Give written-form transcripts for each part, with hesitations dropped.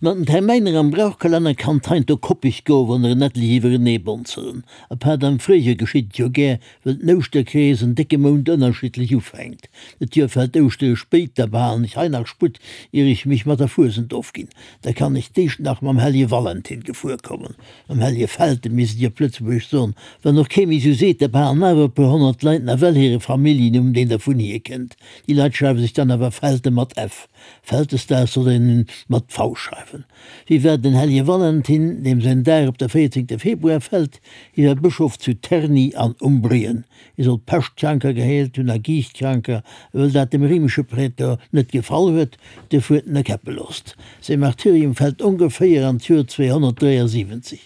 Mat den Termäiner am Brauchkalenner kann 't heiansdo koppeg goen, wann der en etlech iwwerenee bonzelen. Apaart am Fréijoer geschitt et jo gär, wëll den Ouschterkrees en décke Mount ënnerschiddlech ufänkt. Dat Joer fält Ouschtere spéit, da behalen ech hei nach Sputt, ier ech mech mat der Fuesent ofginn. Da kann ech d'éischt nach mam Hellje Valentin gefuer kommen. Mam Hellje Felten, misst ech op Lëtzebuergesch soen. Wann och kee méi sou seet, da behalen awer e puer 100 Leit nawell hire Familljennumm, deen dervun hierkënnt. Déi Leit schreiwe sech dann awer Felte mat f. Vältesdag soll een mat V schreiwen. Wie war den Hellege Valentin, deem säin Dag op de 14 Februar fält? Hie war Bëschof zu Terni an Umbrien. Hie soll Peschtkranker geheelt hunn a Giichtkranker, a wëll dat dem réimesche Prätor net gefall huet, duerfir huet en e käppe loosst. Säi Martyrium fält ongeféier an d'Joer 273.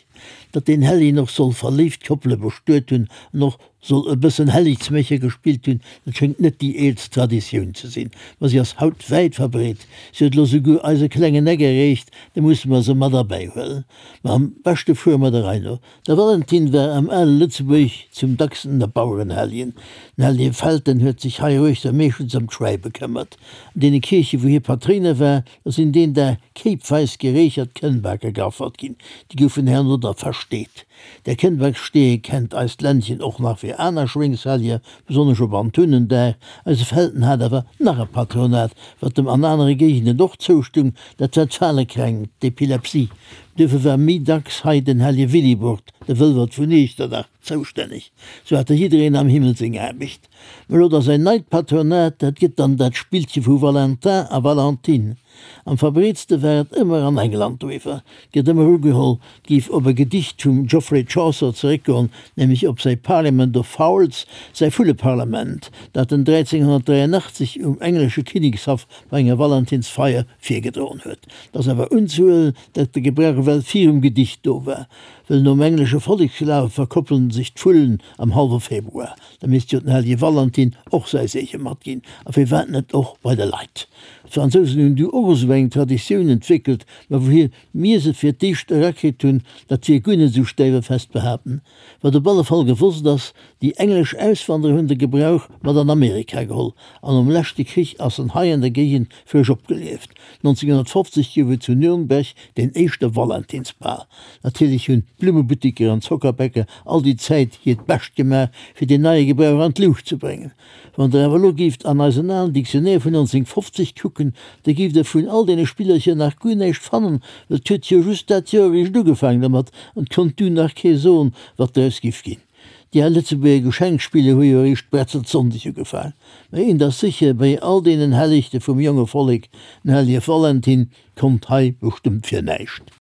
Datt deen Hellegen och soll verléift Koppele bestuet hunn an och soll e bëssen Helligsmécher gespillt hunn, dat schéngt net déi eelst Traditioun ze sinn, ma si ass haut wäit verbreet. Si huet elo souguer eise klengen Eck erreecht, da musse mer se mat erbäihuelen. Ma am beschte fuere mer der Rei no. De Valentin war am ale Lëtzebuerg zum dacksten e Bauerenhelljen. Den Hellje Felten huet sech heiruechter meeschtens ëm d'Schwäi bekëmmert. An deene Kierche wou hie Patréiner war, da sinn deen Dag kéipweis gereechert Kënnbake geaffert ginn. Déi goufen herno da versteet. Der Kënnbaksstee kennt eist Ländchen och nach fir aner Schwéngshelljer, besonnesch op Antunendag. Eise Felten hat awer nach e Patronat, wat em an anere Géigenden och zoustung, dat war d'Falekränkt, d'Epilepsie. Duerfir war méi dacks hei den Hellje Willibrord, de Wëlwert vun Iechternach, zoustänneg. Sou hat da jiddereen am Himmel seng Aarbecht. Mä elo da säin neit Patronat, dat gëtt dann dat Spillche vu Valentin a Valentine. Am verbreetste war et ëmmer an England doriwwer gëtt ëmmer ugeholl, 't géif op e Gedicht vum Geoffrey Chaucer zeréckgoen, nämlech op säi Parliament of Fowls, säi Vulleparlament, dat en 1383 um englesche Kinnekshaff bei enger Valentinsfeier virgedroen huet. 't ass awer unzehuelen, datt de Gebrauch ewell virum Gedicht do war, wëll nom englesche Volleksglawe verkoppelen sech d'Vullen am hallwe Februar. Da misst jo den hellege Valentin och säi Seege matginn, a firwat net och bei de Leit? D'Fransousen hunn du och esou eng Traditioun entwéckelt, ma wouhier mir se fir d'éischt erakritt hunn, dat wier guer net esou stäiwefest behaapten. Wat op alle Fall gewosst ass, déi englesch Auswanderer hunn de Gebrauch mat an Amerika geholl, an nom leschte Krich ass en hei an der Géigend frësch opgelieft. 1950 gouf et zu Nürnberg deen éischte Valentinsbal. Natierlech hunn d'Blummebuttiker an d'Zockerbäcker all déi Zäit hiert Bescht gemaach, fir deen neie Gebrauch an d'Luucht ze bréngen. Wann der awer elo géift an eisen alen Dictionnaire vun 1950 kucken, da géift der vun all deene Spillercher nach guer näischt fannen, well 't huet jo just dat Joer eréischt ugefaangen dermat an 't konnt du nach kee soen, wat draus giff ginn. Déi al Lëtzebuerger Geschenkspiller hu jo eréischt Bretzelsonndeg ugefaang. Mä eent ass sécher, bei all deenen Hellegte vum jonge Vollek, den hellege Valentin konnt hei bestëmmt fir näischt.